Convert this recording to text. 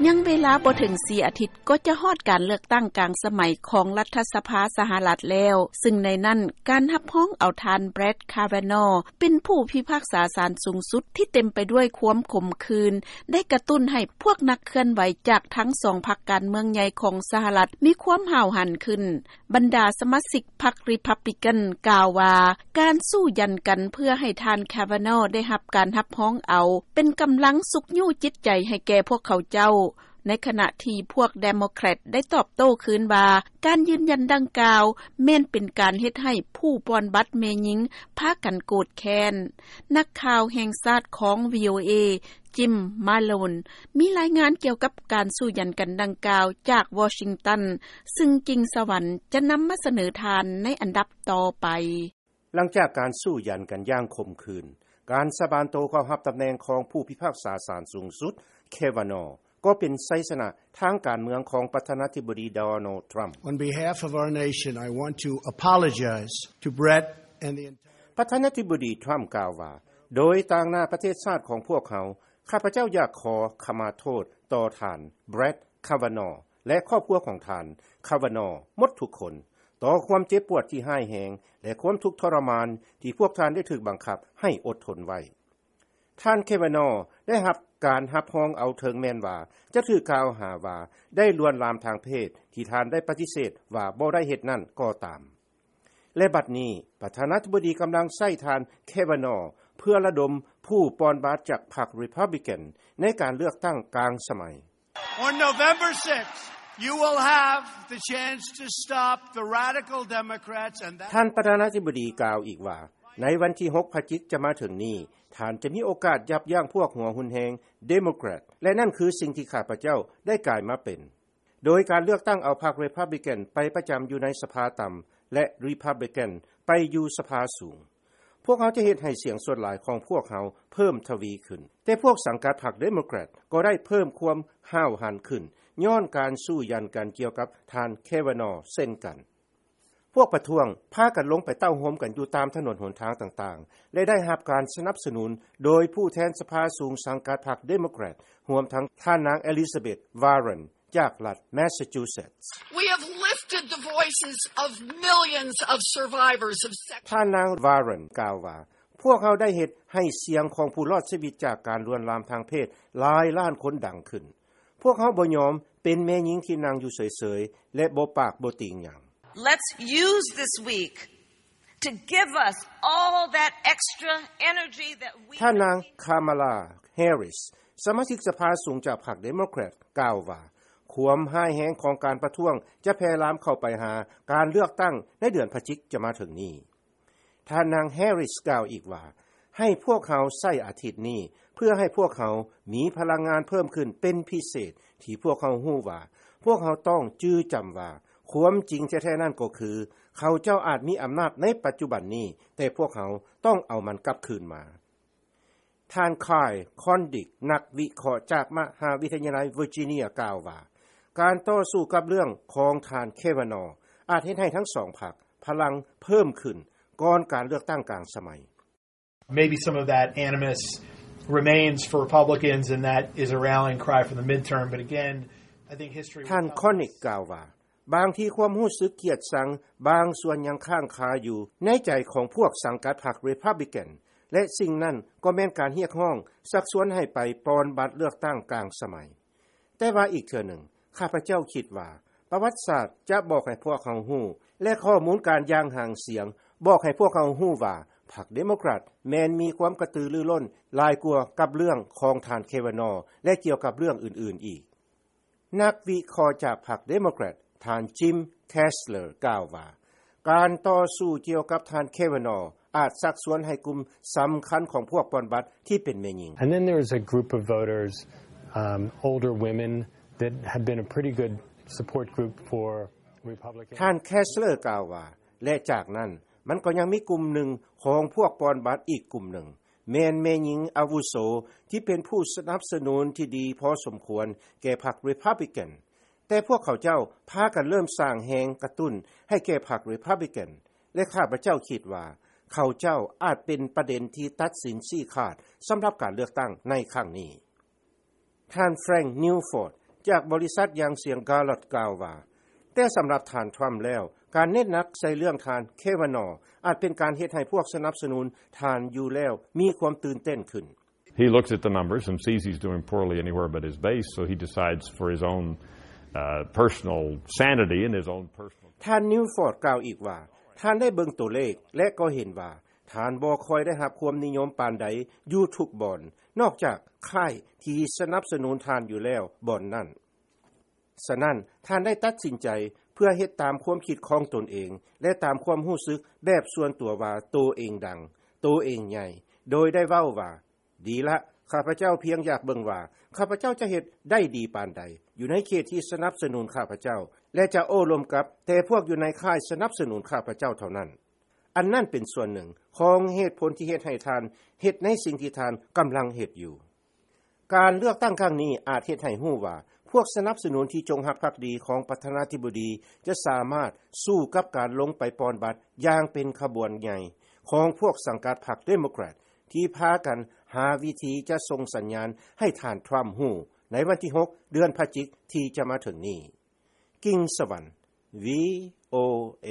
ຍັງເວລາບໍ່ເຖິງ ສີ່ ອາທິດ ກໍຈະຮອດການເລືອກຕັ້ງກາງສະໄໝ ຂອງລັດຖະສະພາສະຫະລັດແລ້ວ, ຊຶ່ງໃນນັ້ນ ການຮັບຮອງເອົາທ່ານ Brett Kavanaugh ເປັນຜູ້ພິພາກສາສານສູງສຸດ ທີ່ເຕັມໄປດ້ວຍຄວາມຂົມຂື່ນ ໄດ້ກະຕຸ້ນໃຫ້ພວກນັກເຄື່ອນໄຫວ ຈາກທັງສອງພັກການເມືອງໃຫຍ່ຂອງສະຫະລັດ ມີຄວາມຫ້າວຫັນຂຶ້ນ. ບັນດາສະມາຊິກພັກ Republican ກ່າວວ່າ ການສູ້ຢັນກັນເພື່ອໃຫ້ທ່ານ Kavanaugh ໄດ້ຮັບການຮັບຮອງເອົາ ເປັນກຳລັງຊຸກຍູ້ຈິດໃຈໃຫ້ແກ່ພວກເຂົາເຈົ້າ, ໃນຂະນະທີ່ພວກ Democrat ໄດ້ຕອບໂຕ້ຄືນວ່າ ການຢືນຢັນດັ່ງກ່າວ ແມ່ນເປັນການເຮັດໃຫ້ຜູ້ປ່ອນບັດແມ່ຍິງພາກັນໂກດແຄ້ນ. ນັກຂ່າວແຫ່ງຊາດຂອງ VOA Jim Malone ມີລາຍງານກ່ຽວກັບການສູ້ຢັນກັນດັ່ງກ່າວຈາກ Washington, ຊຶ່ງກິ່ງສະຫວັນຈະນຳມາສະເໜີທ່ານໃນອັນດັບຕໍ່ໄປ. ຫຼັງຈາກການສູ້ຢັນກັນຢ່າງຂົມຂື່ນ, ການສາບານໂຕເຂົ້າຮັບຕຳແໜ່ງຂອງຜູ້ພິພາກສາສານສູງສຸດ Kavanaugh ກໍເປັນໄຊຊະນະທາງການເມືອງຂອງປະທານາທິບໍດີ Donald Trump. On behalf of our nation, I want to apologize to Brett and the entire ປະທານາທິບໍດີ Trump ກ່າວວ່າ, ໂດຍຕາງໜ້າປະເທດຊາດຂອງພວກເຮົາ, ຂ້າພະເຈົ້າຢາກຂໍຂະມາໂທດຕໍ່ທ່ານ Brett Kavanaugh ແລະ ຄອບຄົວຂອງທ່ານ Kavanaugh ໝົດທຸກຄົນ ຕໍ່ຄວາມເຈັບປວດທີ່ຮ້າຍແຮງ ແລະ ຄວາມທຸກທໍລະມານທີ່ພວກທ່ານໄດ້ຖືກບັງຄັບໃຫ້ອົດທົນໄວ້. ທ່ານ Kavanaugh ໄດ້ຮັບການຮັບຮອງເອົາ ເຖິງແມ່ນວ່າຈະຖືກກ່າວຫາວ່າໄດ້ລວນລາມທາງເພດ ທີ່ທ່ານໄດ້ປະຕິເສດວ່າບໍ່ໄດ້ເຮັດນັ້ນກໍຕາມ. ແລະ ບັດນີ້ ປະທານາທິບໍດີກຳລັງໃຊ້ທ່ານ Kavanaugh ເພື່ອລະດົມຜູ້ປ່ອນບັດຈາກພັກ Republican ໃນການເລືອກຕັ້ງກາງສະໄໝ. On November sixth, you will have the chance to stop the radical Democrats and that ທ່ານປະທານາທິບໍດີກ່າວອີກວ່າ, ໃນວັນທີຫົກພະຈິກຈະມາເຖິງນີ້, ທ່ານຈະມີໂອກາດຢັບຢັ້ງພວກຫົວຮຸນແຮງ Democrat ແລະ ນັ້ນຄືສິ່ງທີ່ຂ້າພະເຈົ້າໄດ້ກາຍມາເປັນ. ໂດຍການເລືອກຕັ້ງເອົາພັກ Republican ໄປປະຈຳຢູ່ໃນສະພາຕ່ຳ ແລະ Republican ໄປຢູ່ສະພາສູງ. ພວກເຮົາຈະເຮັດໃຫ້ສຽງສ່ວນຫຼາຍຂອງພວກເຮົາເພີ່ມທະວີຂຶ້ນ. ແຕ່ພວກສັງກັດພັກ Democrat ກໍໄດ້ເພີ່ມຄວາມຫ້າວຫັນຂຶ້ນ ຍ້ອນການສູ້ຢັນກັນກ່ຽວກັບທ່ານ Kavanaugh ເຊັ່ນກັນ. ພວກປະທ້ວງພາກັນລົງໄປເຕົ້າໂຮມກັນຢູ່ຕາມຖະໜົນຫົນທາງຕ່າງໆ ແລະ ໄດ້ຮັບການສະໜັບສະໜູນໂດຍຜູ້ແທນສະພາສູງສັງກັດພັກ Democrat ຮວມທັງທ່ານນາງ Elizabeth Warren ຈາກລັດ Massachusetts. We have lifted the voices of millions of survivors of sex. ທ່ານນາງ Warren ກ່າວວ່າ, ພວກເຮົາໄດ້ເຮັດໃຫ້ສຽງຂອງຜູ້ລອດຊີວິດຈາກການລວນລາມທາງເພດຫຼາຍລ້ານຄົນດັງຂຶ້ນ. ພວກເຮົາບໍ່ຍອມເປັນແມ່ຍິງທີ່ນັ່ງຢູ່ເສີຍໆ ແລະ ບໍ່ປາກບໍ່ຕີງຫຍັງ. Let's use this week to give us all that extra energy that we ທ່ານນາງ Kamala Harris ສະມາຊິກສະພາສູງຈາກພັກ Democrat ກ່າວວ່າ, ຄວາມຮ້າຍແຮງຂອງການປະທ້ວງຈະແຜ່ລາມເຂົ້າໄປຫາການເລືອກຕັ້ງໃນເດືອນພະຈິກຈະມາເຖິງນີ້. ທ່ານນາງ Harris ກ່າວອີກວ່າ, ໃຫ້ພວກເຮົາໃຊ້ອາທິດນີ້ເພື່ອໃຫ້ພວກເຮົາມີພະລັງງານເພີ່ມຂຶ້ນເປັນພິເສດ, ທີ່ພວກເຮົາຮູ້ວ່າ ພວກເຮົາຕ້ອງຈື່ຈຳວ່າ ຄວາມຈິງແທ້ໆນັ້ນກໍຄື ເຂົາເຈົ້າອາດມີອຳນາດໃນປັດຈຸບັນນີ້, ແຕ່ພວກເຮົາຕ້ອງເອົາມັນກັບຄືນມາ. ທ່ານ Kyle Kondik ນັກວິເຄາະຈາກມະຫາວິທະຍາໄລ Virginia ກ່າວວ່າ, ການຕໍ່ສູ້ກັບເລື່ອງຂອງທ່ານ Kavanaugh ອາດເຮັດໃຫ້ທັງສອງພັກພະລັງເພີ່ມຂຶ້ນກ່ອນການເລືອກຕັ້ງກາງສະໄໝ. Maybe some of that animus remains for Republicans, and that is a rallying cry for the midterm. But again, I think history will tell us. ທ່ານ Kondik ກ່າວວ່າ, ບາງທີຄວາມຮູ້ສຶກກຽດຊັງບາງສ່ວນຍັງຄ້າງຄາຢູ່ໃນໃຈຂອງພວກສັງກັດພັກ Republican ແລະ ສິ່ງນັ້ນກໍແມ່ນການຮຽກຮ້ອງຊັກຊວນໃຫ້ໄປປ່ອນບັດເລືອກຕັ້ງກາງສະໄໝ. ແຕ່ວ່າອີກເທື່ອໜຶ່ງ, ຂ້າພະເຈົ້າຄິດວ່າປະຫວັດສາດຈະບອກໃຫ້ພວກເຮົາຮູ້ ແລະ ຂໍ້ມູນການຢ່າງຫາງສຽງບອກໃຫ້ພວກເຮົາຮູ້ວ່າ ພັກ Democrat ແມ່ນມີຄວາມກະຕືລືລົ້ນຫຼາຍກວ່າກັບເລື່ອງຂອງທ່ານ Kavanaugh ແລະ ກ່ຽວກັບເລື່ອງອື່ນໆອີກ. ນັກວິເຄາະຈາກພັກ Democrat ທ່ານ Jim Kessler ກ່າວວ່າ, ການຕໍ່ສູ້ກ່ຽວກັບທ່ານ Kavanaugh ອາດຊັກຊວນໃຫ້ກຸ່ມສຳຄັນຂອງພວກປ່ອນບັດທີ່ເປັນແມ່ຍິງ. And then there is a group of voters, um, older women that have been a pretty good support group for Republicans. ທ່ານ Kessler ກ່າວວ່າ, ແລະ ຈາກນັ້ນ, ມັນກໍຍັງມີກຸ່ມໜຶ່ງຂອງພວກປ່ອນບັດອີກກຸ່ມໜຶ່ງ, ແມ່ນແມ່ຍິງອາວຸໂສທີ່ເປັນຜູ້ສະໜັບສະໜູນທີ່ດີພໍສົມຄວນແກ່ພັກ Republican, ແຕ່ພວກເຂົາເຈົ້າພາກັນເລີ່ມສ້າງແຮງກະຕຸ້ນໃຫ້ແກ່ພັກ Republican ແລະ ຂ້າພະເຈົ້າຄິດວ່າເຂົາເຈົ້າອາດເປັນປະເດັນທີ່ຕັດສິນຊີ້ຂາດສຳລັບການເລືອກຕັ້ງໃນຄັ້ງນີ້. ທ່ານ Frank Newford ຈາກບໍລິສັດຢ່າງສຽງກາລັອດກ່າວວ່າ ແຕ່ສຳລັບທ່ານທຣຳແລ້ວ ການເນັ້ນໜັກໃສ່ເລື່ອງທ່ານເຄວານອ ອາດເປັນການເຮັດໃຫ້ພວກສະໜັບສະໜູນທ່ານຢູ່ແລ້ວມີຄວາມຕື່ນເຕັ້ນຂຶ້ນ. He looks at the numbers and sees he's doing poorly anywhere but his base, so he decides for his own uh, personal sanity and his own personal. ທ່ານນິວຟອດກ່າວອີກວ່າ ທ່ານໄດ້ເບິ່ງໂຕເລກ ແລະກໍເຫັນວ່າ ທ່ານບໍ່ຄ່ອຍໄດ້ຮັບຄວາມນິຍົມປານໃດຢູ່ທຸກບ່ອນ ນອກຈາກຄ້າຍທີ່ສະໜັບສະໜູນທ່ານຢູ່ແລ້ວບ່ອນນັ້ນ. ສະນັ້ນ ທ່ານໄດ້ຕັດສິນໃຈເພື່ອເຮັດຕາມຄວາມຄິດຂອງຕົນເອງ ແລະຕາມຄວາມຮູ້ສຶກແບບສ່ວນຕົວວ່າໂຕເອງດັງ, ໂຕເອງໃຫຍ່ ໂດຍໄດ້ເວົ້າວ່າ ດີລະ, ຂ້າພະເຈົ້າພຽງຢາກເບິ່ງວ່າ ຂ້າພະເຈົ້າຈະເຮັດໄດ້ດີປານໃດ ຢູ່ໃນເຂດທີ່ສະໜັບສະໜູນຂ້າພະເຈົ້າ ແລະຈະໂອ້ລົມກັບແຕ່ພວກຢູ່ໃນຄ້າຍສະໜັບສະໜູນຂ້າພະເຈົ້າເທົ່ານັ້ນ. ອັນນັ້ນເປັນສ່ວນໜຶ່ງຂອງເຫດຜົນທີ່ເຮັດໃຫ້ທ່ານເຮັດໃນສິ່ງທີ່ທ່ານກຳລັງເຮັດຢູ່. ການເລືອກຕັ້ງຄັ້ງນີ້ອາດເຮັດໃຫ້ຮູ້ວ່າ ພວກສະໜັບສະໜູນທີ່ຈົງຮັກພັກດີຂອງປະທານາທິບໍດີ ຈະສາມາດສູ້ກັບການລົງໄປປ່ອນບັດຢ່າງເປັນຂະບວນໃຫຍ່ຂອງພວກສັງກັດພັກເດໂມແຄຣດ ທີ່ພາກັນຫາວິທີຈະສົ່ງສັນຍານໃຫ້ທ່ານທຣຳຮູ້ໃນວັນທີຫົກ ເດືອນພະຈິກທີ່ຈະມາເຖິງນີ້. ກິງສະຫວັນ ວີໂອເອ.